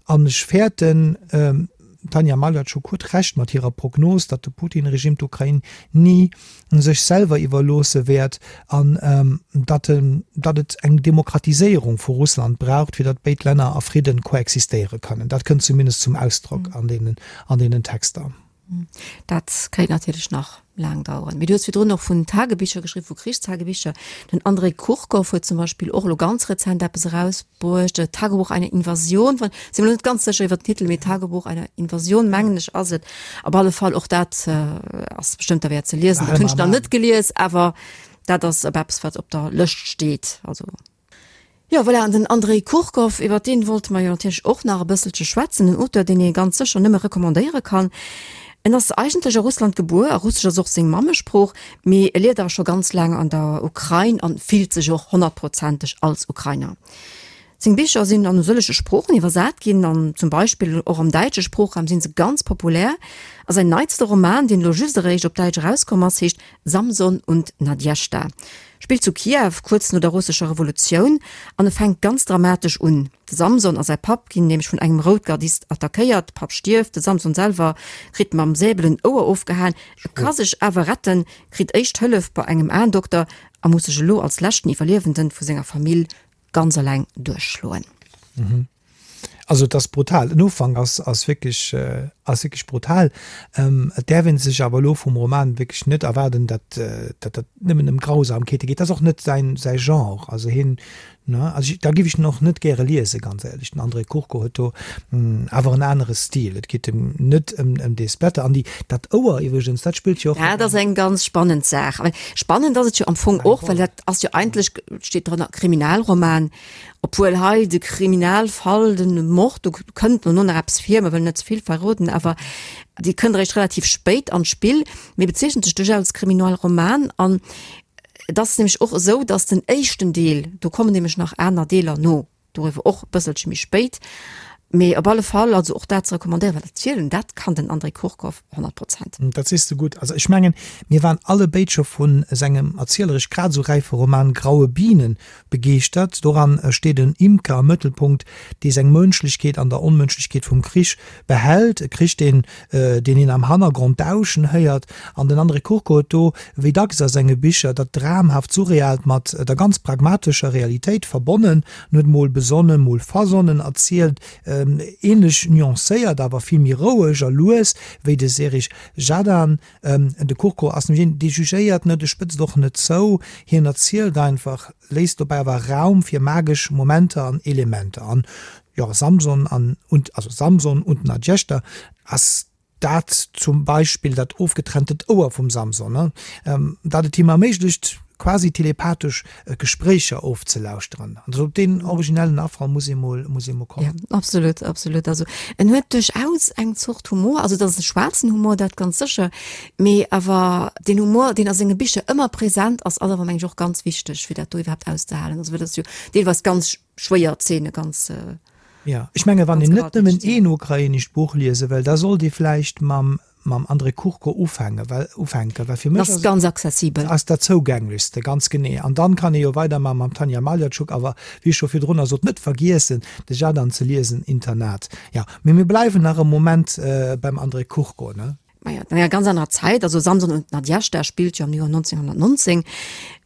An ech fäerten, d'Tanja Maljatschuk huet Recht mat hirer Prognos, datt de Putin-Regime d'Ukrain ni sech selwer iwwerloosse wäert an datt datt et eng Demokratiséierung vu Russland braucht, fir datt béid Länner a Fridden koexistéiere kënnen. Dat kënnt zumindest zum Ausdrock an deenen an deenen Texter. Dat kéint natierlech nach laang daueren. Mee du hues virdrun och vun Tagebicher geschriwwen, vu Krichstagebicher. Den Andrei Kurkow huet zum Beispill och elo ganz rezent eppes erausbruecht, Tagebuch einer Invasion, wann, si mer elo net ganz sécher iwwer den Titel, mee Tagebuch einer Invasion, mengen ech, ass et. Op alle Fall, och dat ass bestëmmt derwäert ze liesen. Dat hunn ech nach net gelies, awer dat ass op eppes, wat op der Lëscht steet. Also. Jo, voilà, an den Andrei Kurkow, iwwer deen wollte mer jo natierlech och nach e bësselche schwätzen, en Auteur, deen ee ganz sécher nëmme recommandéiere kann. En ass eigentlech a Russland gebuer a Russesch ass och seng Mammesprooch, mee e lieft awer scho ganz laang an der Ukrain an fillt sech och honnertprozenteg als Ukrainer. Seng Bicher sinn an e sëllege Sproochen iwwersat ginn an zum Beispill och am däitsche Sproochraum si se ganz populär. A säin neitste Roman, deen elo just eréischt op Däitsch erauskomm ass, heescht Samson und Nadjezhda. Spillt zu Kiew, kuerz no der russescher Revolutioun, an e fänkt ganz dramatesch un. De Samson a säi Papp ginn nämlech vun engem Routgardist attackéiert, de Papp stierft, de Samson selwer kritt mam Säbel en Ouer ofgehaen, e ka sech awer retten, kritt éischt Hëllef bei engem Aendokter a muss sech elo als leschten Iwwerliewenden vu senger Famill ganz eleng duerchschloen. Also et ass brutal. Den Ufank ass, ass wierklech, ass wierklech brutal. Et däerf ee sech awer elo vum Roman wierklech net erwaarden, datt, datt dat nëmmen ëm Grausamkeete geet. Dat ass och net säin, säi Genre. Also hien, ne, also da giff ech en och net gäre liesen, ganz éierlech. Den André Kurko huet do awer en anere Stil. Et geet em net ëm, ëm dee Splatter. An déi, dat Ouer iwwregens, dat spillt jo och. Dat ass eng ganz spannend Saach. Spannend ass et jo am Fong och, well dat ass jo eigentlech, steet drënner, Kriminalroman. Obwuel hei de Kriminalfall, de Mord, do kënnt no nach eppes vir, mer wëllen net ze vill verroden, awer dee kënnt eréischt relativ spéit an d'Spill, mee bezeechent sech duerchaus als Kriminalroman. An et ass nämlech och esou, datt den éischten Deel, do kommen nämlech nach aner Deeler no, doriwwer och e bësselche méi spéit, mee op alle Fall also och dat ze recommandéieren, well erzielen, dat kann den André Kurkow 100 Prozent. Dat sees de gutt. Also ech mengen, mir waren allebéid scho vu sengem erzieleresch grad esou räife Roman Graue Bienen Begeeschtert. Doran steet en Imker am Mëttelpunkt, dee seng Mënschlechkeet an der Onmënschlechkeet vum Krich behält. E Krich, deen deen een am Hannergrond dauschen héiert. An den André Kurko huet do, wéi dacks a senge Bicher, dat dramhaft Surrealt mat der ganz pragmatescher Realitéit verbonnen. En huet mol besonnen, mol versonnen erzielt, ähnlech nuancéiert, awer vill méi roueg a lues wéi de Serij Zhadan. De Kurko ass nämlech een, dee jugéiert net, e spëtzt och net zou, hien erzielt einfach, léisst dobäi awer Raum fir magesch Momenter an Elementer. An jo, Samson an und, also Samson und Nadjeshda ass dat zum Beispill, dat ofgetrenntent Ouer vum Samson, dat et him erméiglecht, quasi telepathesch Gespréicher ofzelauschteren. Also op deen originellen Afall muss ee mol, muss ee mol kommen. Ja, absolut, absolut. Also en huet duerchaus eng Zort Humor, also et ass e schwaarzen Humor, dat ganz sécher, mee awer deen Humor, deen a senge Bicher ëmmer present ass, ass awer meng ech och ganz wichteg, fir dat do iwwerhaapt auszehalen. Also well dat ass jo deelweis ganz schwéier Zeene, ganz. Ja, ech menge wann een net nëmmen een ukrainescht Buch liese wëll, da sollt ee vläicht mam mam André Kurko ufänken, well ufänken, well fir mech ass ganz accessibel. Ass dat zougänglechste, ganz genee. An dann kann ee jo weidermachen mam Tanja Maljatschuk, awer wéi ech scho virdrunner sot, net vergiessen de Zhadan ze liesen, Internat. Jo, mee mir bleiwen nach e Moment beim André Kurko, ne? Maja, an enger ganz anerer Zäit, also Samson und Nadjezhda spillt jo am Joer 1919,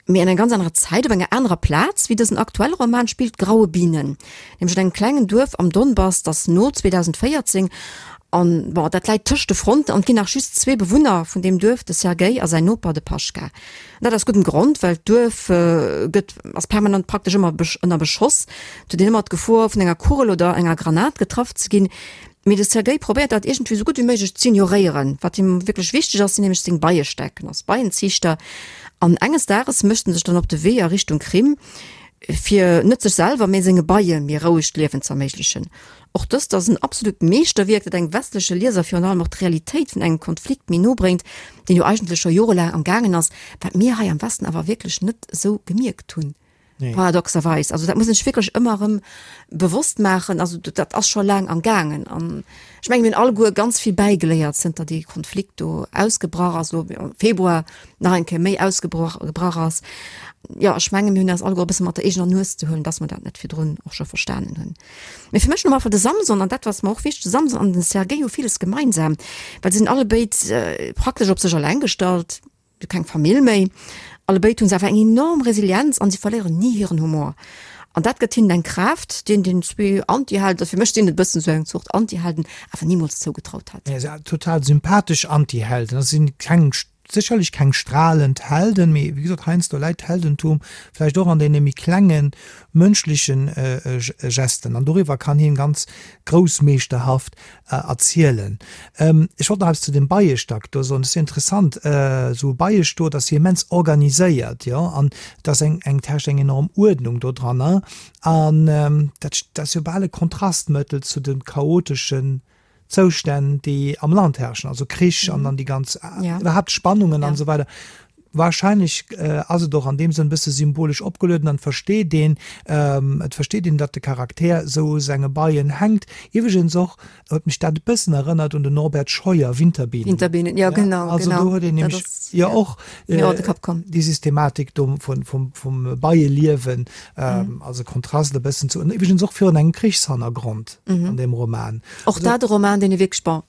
mee an enger ganz anerer Zäit, op enger anerer Plaz wéi dësen aktuelle Roman spillt Graue Bienen, nämlech an engem klengen Duerf am Donbass, dat no 2014, an bon, dat läit tëscht de Fronten an et ginn nach just zwee Bewunner vun deem Duerf, de Sergej a säin Noper, de Paschka. An dat aus guddem Grond, well d'Duerf gëtt, ass permanent praktesch ëmmer ënner Beschoss, et huet een ëmmer d'Gefor vun enger Kugel oder enger Granat getraff ze ginn. Mee de Sergej probéiert dat iergendwéi esou gutt wéi méiglech z'ignoréieren. Wat him wierklech wichteg ass, sinn nämlech seng Beiestäck. En ass Beienziichter an enges Dages mécht en sech dann op de Wee a Richtung Krim, fir net sech selwer, mee senge Beie méi rouegt Liewen z'erméiglechen. Och dëst ass en absolut Meeschterwierk, dat engem westleche Lieser virun allem och d'Realitéit vun engem Konflikt méi no bréngt, deen jo eigentlech scho jorelaang am gaangen ass, wat mir hei am Westen awer wierklech net esou gemierkt hunn. Nee. Paradoxerweis. Also dat muss een sech wierklech ëmmer erëm bewosst maachen. Also dat ass scho laang am gaangen. An ech mengen, mir hunn alleguer ganz vill bäigeléiert, zënter dee Konflikt do ausgebrach ass, elo am Februar nach eng Kéier méi ausgebrach gebrach ass. Jo, ech mengen, mir hunn eis alleguer e bësse mat der eegener Nues ze huelen, dass mer dat net virdrun och scho verstanen hunn. Mee fir mech no einfach de Samson, an dat ass mer och wichteg, de Samson an den Sergej hu villes gemeinsam, well se sinn allebéid praktesch op sech eleng gestallt. Hu keng Famill méi. Allebéid hu se awer eng enorm Resilienz an si verléieren ni hiren Humor. An dat gëtt hinnen eng Kraaft, déi een den zwee Antihelden, fir mech sinn et e bëssen esou eng Zort Antihelden, awer nimools zougetraut hätt. Ja, total sympathesch Antihelden. Dat sinn keng, sécherlech keng stralend Helden, mee wéi gesot, heiansdo läit d'Heldentum vläicht och an deene méi klengen mënschlechen Gesten. An doriwwer kann hien ganz groussmeeschterhaft erzielen. Ech wollt nach eppes zu dem Beiestack do soen. Dat ass jo interessant, esou e Beiestot ass jo immens organiséiert, jo, an et ass eng, eng, et herrscht eng enorm Uerdnung dodranner. An dat, dat ass jo bal e Kontrastmëttel zu de chaoteschen Zoustänn, déi am Land herrschen, also Krich an dann déi ganz, iwwerhaapt Spannungen an esou weider. Wahrscheinlech ass et och an deem Sënn e bësse symbolesch opgelueden an et versteet een, et versteet een, datt de Charakter esou u senge Beien hänkt. Iwwregens och huet mech dat e bëssen erënnert un den Norbert Scheuer, Winterbienen. Winterbienen, jo genau, Also do huet een nämlech jo och déi Systematik do vum Beieliewen als e Kontrast e bëssen zu, iwwregens och virun engem Krichshannergrond an deem Roman. Och dat e Roman, deen ee wierklech, bon,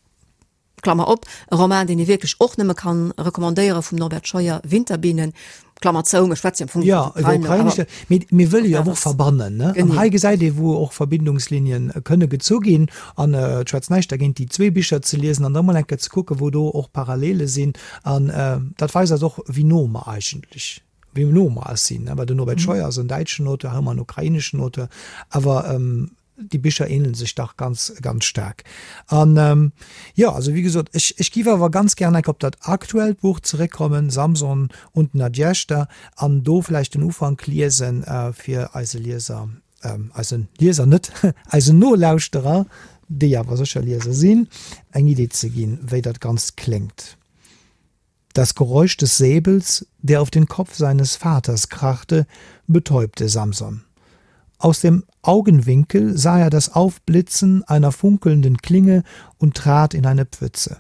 Klammer op, e Roman, deen ee wierklech och nëmme kann recommandéiere vum Norbert Scheuer, Winterbienen, Klammer zou, mir schwätze jo am Fong iwwer d'Ukrain, awer. Jo, iwwer Ukrainesch, mee mir wëlle jo awer och verbannen, ne? An hei gesäit ee, wou och Verbindungslinien kënne gezu ginn. An et schwätzt näischt dergéint, déi zwee Bicher ze liesen an da mol eng Kéier ze kucken, wou do och Parallele sinn. An dat weist eis och, wéi no mer eigentlech, wéi no mer eis sinn, ne? Well den Norbert Scheuer ass en däitschen Auteur, hei hu mer en ukraineschen Auteur, awer Déi Bicher ähnelen sech dach ganz, ganz staark. An jo, also wéi gesot, ech, ech giff awer ganz gären enk op dat aktuellt Buch zeréckkommen, Samson und Nadjezhda, an do vläicht den Ufank liesen, fir eise Lieser, eise Lieser net, eisen Nolauschterer, déi awer sécher Lieser sinn, eng Idee ze ginn, wéi dat Ganzt kléngt. Das Geräusch des Säbels, der auf den Kopf seines Vaters krachte, betäubte Samson. Aus dem Augenwinkel sah er das Aufblitzen einer funkelnden Klinge und trat in eine Pfütze.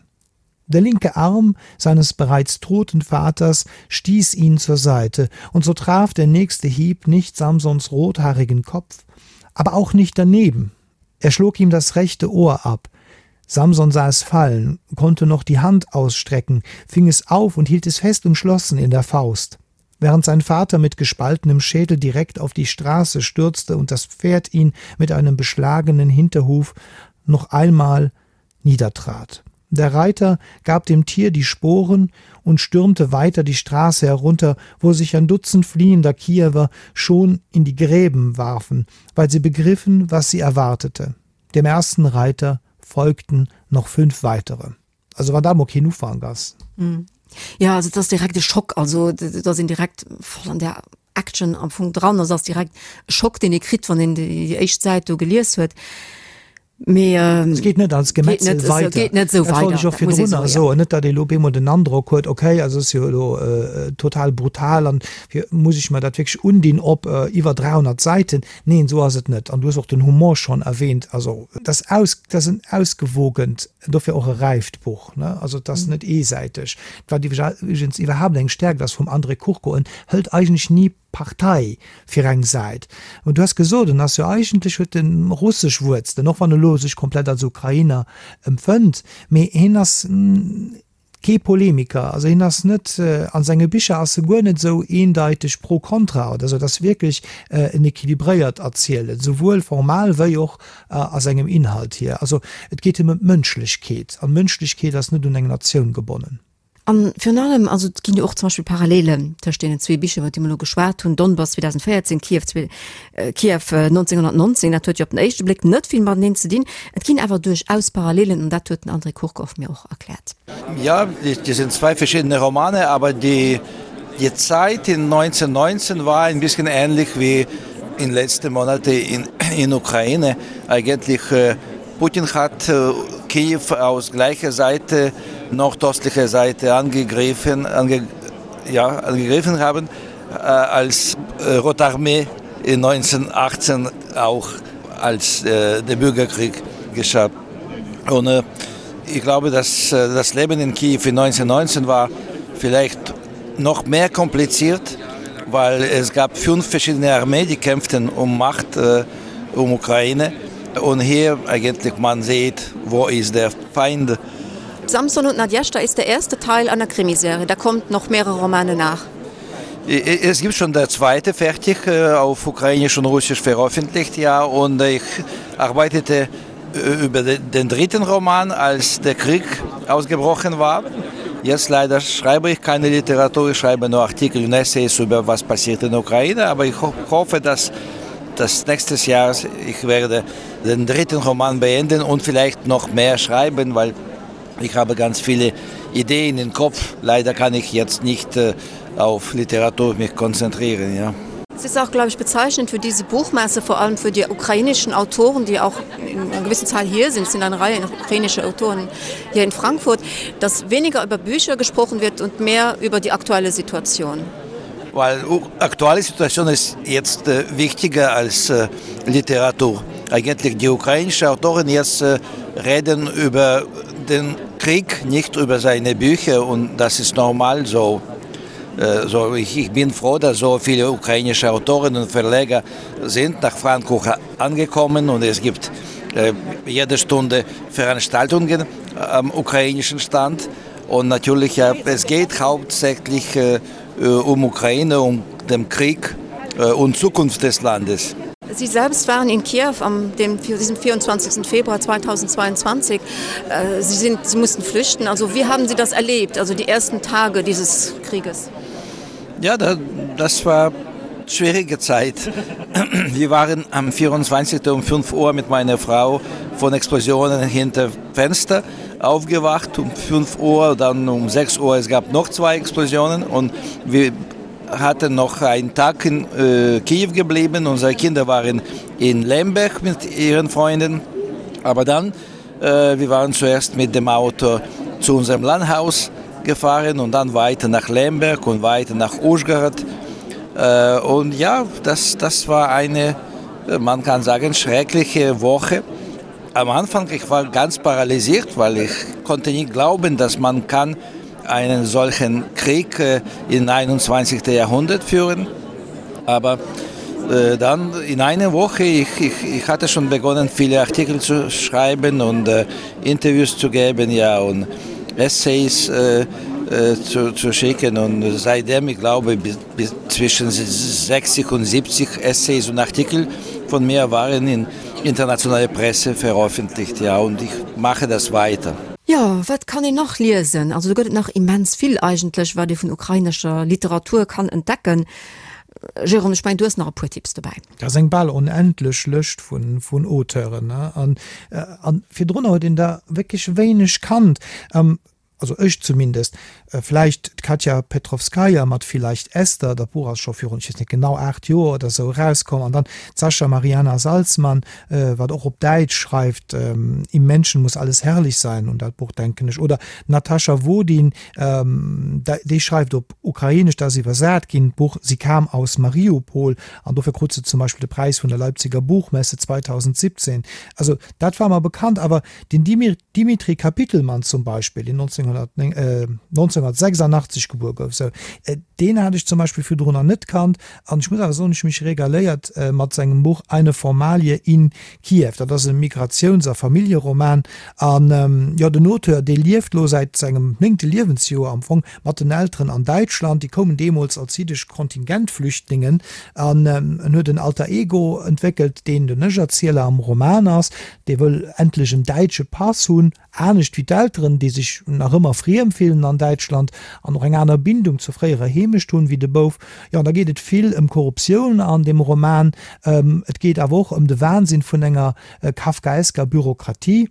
Der linke Arm seines bereits toten Vaters stieß ihn zur Seite, und so traf der nächste Hieb nicht Samsons rothaarigen Kopf, aber auch nicht daneben. Er schlug ihm das rechte Ohr ab. Samson sah es fallen, konnte noch die Hand ausstrecken, fing es auf und hielt es fest umschlossen in der Faust. Während sein Vater mit gespaltenem Schädel direkt auf die Straße stürzte und das Pferd ihn mit einem beschlagenen Hinterhuf noch einmal niedertrat. Der Reiter gab dem Tier die Sporen und stürmte weiter die Straße herunter, wo sich ein Dutzend fliehender Kiewer schon in die Gräben warfen, weil sie begriffen, was sie erwartete. Dem ersten Reiter folgten noch fünf weitere. Also wann dat mol keen Ufank ass. Jo, also et ass direkt e Schock, also et ass een direkt voll an där Action am Fong dran, also ass direkt e Schock, deen ee kritt, wann een déi éischt Säit do gelies huet. Mee et geet net als Gemetzel weider. Geet net esou weider. Dat wollt ech och virdrun nach soen. Net, datt ee lo op eemol den Androck huet, okay, also ass jo elo total brutal an muss ech mer dat wierklech undinn op iwwer 300 Säiten. Neen, esou ass et net. An du hues och den Humor schonn erwähnt. Also et ass aus, et ass en ausgewogent, dofir och e räift Buch, ne? Also et ass net eesäiteg. Wat iwwregens iwwerhaapt eng Stärkt ass vum André Kurko, en hëlt eigentlech ni Partei fir eng Säit. Mä du has gesot, en ass jo eigentlech, huet en russesch Wuerzelen, och wann e lo sech komplett als Ukrainer empfënnt, mee hien ass kee Polemiker, also hien ass net, a senge Bicher ass e guer net esou eendeiteg pro kontra oder esou, et ass wierklech en equilibréiert Erzielen, souwuel formal wéi och a sengem Inhalt hier. Also et geet him ëm d'Mënschlechkeet, an d'Mënschlechkeet ass net un eng Natioun gebonnen. An virun allem, also et ginn jo och zum Beispill Parallelen tëscht deenen zwee Bicher, iwwer déi mer elo geschwat hunn, Donbass 2014, Kiew, Kiew 1919, dat huet jo op den éischte Bléck net vill mateneen ze dinn. Et ginn awer duerchaus Parallelen an dat huet den André Kurkow mir och erkläert. Ja, die sind zwei verschiedene Romane, aber die, die Zeit in 1919 war ein bisschen ähnlich wie in letzten Monate in, in Ukraine. Eigentlich Putin hat Kiew aus gleicher Seite nordöstliche Seite angegriffen ange, ja, angegriffen haben äh, als äh, Rotarmee in 1918 auch als äh, der Bürgerkrieg geschah. Und äh, ich glaube, dass äh, das Leben in Kiew in 1919 war vielleicht noch mehr kompliziert, weil es gab fünf verschiedene Armeen, die kämpften um Macht äh, um Ukraine. Und hier eigentlich man sieht, wo ist der Feind. Samson und Nadjeshda ist der erste Teil einer Krimiserie. Da kommt noch mehrere Romane nach. Es gibt schon der zweite fertig äh, auf ukrainisch und russisch veröffentlicht ja und ich arbeitete äh, über den dritten Roman als der Krieg ausgebrochen war. Jetzt leider schreibe ich keine Literatur, ich schreibe nur Artikel und Essays über was passiert in der Ukraine, aber ich ho hoffe, dass das nächstes Jahr ich werde den dritten Roman beenden und vielleicht noch mehr schreiben, weil ich habe ganz viele Ideen im Kopf. Leider kann ich jetzt nicht äh, auf Literatur mich konzentrieren. Ja. Es ist auch, glaube ich, bezeichnend für diese Buchmesse, vor allem für die ukrainischen Autoren, die auch in einer gewissen Zahl hier sind, sind eine Reihe ukrainische Autoren hier in Frankfurt, dass weniger über Bücher gesprochen wird und mehr über die aktuelle Situation. Weil aktuelle Situation ist jetzt äh, wichtiger als äh, Literatur. Eigentlich die ukrainischen Autoren jetzt äh, reden über den Krieg, nicht über seine Bücher und das ist normal so. Äh, so ich, ich bin froh, dass so viele ukrainische Autoren und Verleger sind nach Frankfurt angekommen und es gibt äh, jede Stunde Veranstaltungen am ukrainischen Stand. Und natürlich ja, es geht hauptsächlich äh, um Ukraine, um den Krieg und Zukunft des Landes. Sie selbst waren in Kiew am dem, diesem 24. Februar 2022. Sie, sind, sie mussten flüchten. Also wie haben Sie das erlebt, also die ersten Tage dieses Krieges? Ja, da, das war schwierige Zeit. Wir waren am 24. um 5 Uhr mit meiner Frau von Explosionen hinter Fenster aufgewacht um 5 Uhr, dann um 6 Uhr es gab noch zwei Explosionen und wir hatten noch einen Tag in äh, Kiew geblieben. Unsere Kinder waren in Lemberg mit ihren Freunden. Aber dann äh, wir waren zuerst mit dem Auto zu unserem Landhaus gefahren und dann weiter nach Lemberg und weiter nach Uschgard. Äh, und ja, das, das war eine, man kann sagen, schreckliche Woche. Am Anfang ich war ganz paralysiert, weil ich konnte nicht glauben, dass man kann einen solchen Krieg äh, im 21. Jahrhundert führen. Aber äh, dann in einer Woche ich, ich, ich hatte schon begonnen, viele Artikel zu schreiben und äh, Interviews zu geben ja und Essays äh, äh, zu, zu schicken und seitdem ich glaube bis, bis zwischen 60 und 70 Essays und Artikel von mir waren in internationale Presse veröffentlicht ja und ich mache das weiter. Jo, wat kann een nach liesen? Also do gëtt et nach immens vill eigentlech, wat ee vun ukrainescher Literatur kann entdecken. Jérôme, ech mengen, du hues nach e puer Tipps dobäi. Dat ass eng bal onendlech Lëscht vun Auteuren, ne? An, an virdrunner huet een der wierklech wéineg kannt. Also ech zumindest. Vläicht d'Katja Petrovskaja mat Vielleicht Esther, dat Buch ass scho virun, ech weess net genau, 8 Joer oder sou erauskomm. An dann d'Sascha Mariana Salzmann, wat och op Däitsch schreift, Im Menschen muss alles herrlich sein, un dat Buch denken ech. Oder d'Natascha Wodin, déi schreift op Ukrainesch, dat ass iwwersat ginn, d'Buch Sie kam aus Mariupol, an dofir krut se zum Beispill de Präis vun der Leipziger Buchmesse 2017. Also dat war mer bekannt, awer Den Dimitri Kapitelmann zum Beispill, deen 1986 gebuer gouf, sou, deen hat ech zum Beispill virdrunner net kannt. An ech muss awer soen, ech hu mech regaléiert mat sengem Buch Eine Formalie in Kiew. Dat ass e Migratiouns a Familljeroman. An jo, den Auteur, dee lieft lo säit sengem néngte Liewensjoer am Fong mat den Elteren an Däitschland. Déi koumen deemools als jiddesch Kontingentflüchtlingen. An en huet en Alter Ego entwéckelt, deen den Ech-Erzieler am Roman ass. Dee wëll endlech en däitsche Pass hunn, anescht wéi d'Elteren, déi sech nach ëmmer friem fillen an Däitschland an och eng aner Bindung zur fréierer Heemecht hunn wéi de Bouf. Jo, an da geet et vill ëm Korruptioun an deem Roman. Et geet awer och ëm de Wahnsinn vun enger kafkaesker Bürokratie.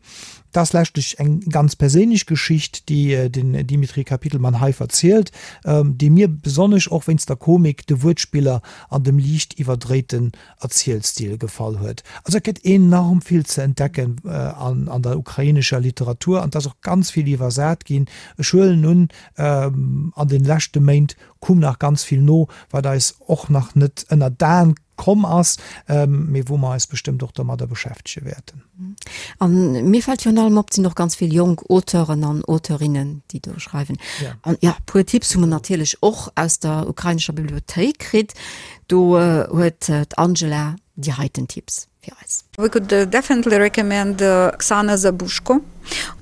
Et ass leschtlech eng ganz perséinlech Geschicht, déi den Dimitri Kapitelmann hei verzielt, déi mir besonnesch och wéinst der Komik, de Wuertspiller an dem liicht iwwerdréiten Erzielstil gefall huet. Also et gëtt enorm vill ze entdecken an der ukrainescher Literatur an et ass och ganz vill iwwersat ginn. Ech huelen un, an den leschte Méint koum nach ganz vill no, wat eis och nach net ënner d'Aen komm ass, mee wou mer eis bestëmmt och domadder beschäftege wäerten. A mir fält virun allem op, et sinn och ganz vill jonk Auteuren an Auteurinnen, déi do schreiwen. An jo, e puer Tipps hu mer natierlech och aus der ukrainescher Bibliothéik kritt. Do huet d'Angela déi heiten Tipps fir eis. We could definitely recommend Oksana Zabuzhko.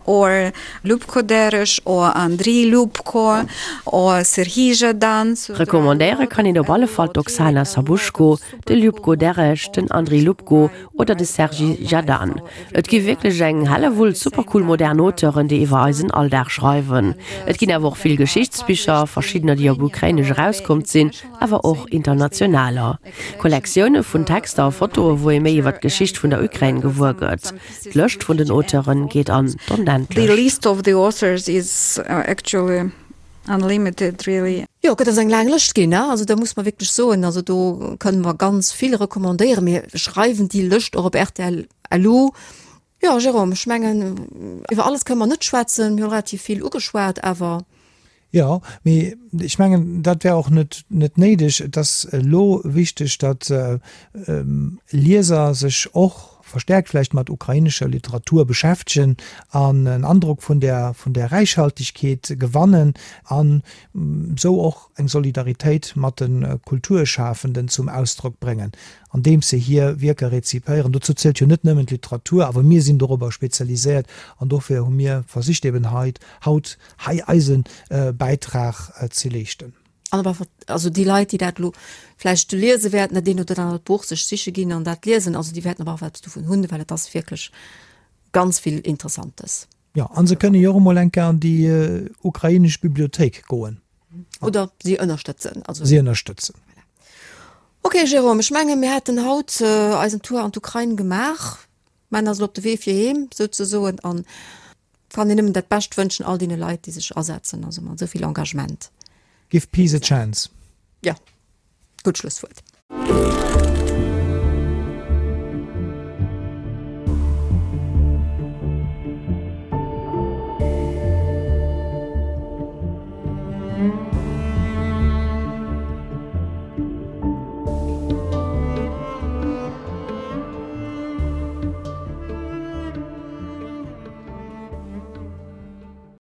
Or Lubko Deresh or Andriy Lubko or Serhij Zhadan. Recommandéiere kann een op alle Fall d'Oksana Sabushko, de Ljubko Deresh, den Andriy Lubko oder de Serhij Zhadan. Et gi wierklech eng Hellewull supercool modern Auteuren, déi iwwer eisen Alldag schreiwen. Et ginn awer och vill Geschichtsbicher, verschiddener déi op Ukrainesch erauskommt sinn, awer och internationaler. Kollektioune vun Texter a Fotoe wou ee méi iwwer d'Geschicht vun der Ukrain gewuer gëtt. D'Lëscht vun den Auteure geet an d'Onendlecht. The list of the authors is actually unlimited really. Jo, et ass eng laang Lëscht ginn, also da muss mer wierklech soen, also do kënne mer ganz vill recommandéieren. Mir schreiwen déi Lëscht och op rtl LU. Jo, Jérôme, ech mengen, iwwer alles kënne mer net schwätzen, mir hu relativ vill ugeschwat, awer. Jo, mee ech mengen, dat wär och net net néideg. Et ass elo wichteg, datt Lieser sech och verstärkt vläicht mat ukrainescher Literatur beschäftegen an en Androck vun där vun där Räichhaltegkeet gewannen an esou och eng Solidaritéit mat de Kulturschafenden zum Ausdrock bréngen, andeems se hir Wierker rezipéieren. Dozou zielt jo net nëmmen d'Literatur, awer mir sinn dorobber spezialiséiert an dofir hu mir versicht eben hei haut hei eise Bäitrag ze leeschten. An awer, also déi Leit, déi dat elo vläicht liese wäerten, dat eent oder dat anert Buch sech siche ginn an dat liesen, also déi wäerten awer och eppes dovun hunn, well et ass wierklech ganz vill Interessantes. Jo, a se kënne jo och emol eng Kéier an déi ukrainesch Bibliothéik goen. Oder si ënnerstëtzen. Also si ënnerstëtzen. Voilà. Ok, Jérôme, ech menge mir hätten haut eisen Tour an d'Ukrain gemaach. Mä ass elo op de Wee fir heem souzesoen an kann een nëmmen dat Bescht wënschen all deene Leit, déi sech asetzen, also mat esou vill Engagement. Give peace a chance. Jo, gutt Schlusswuert.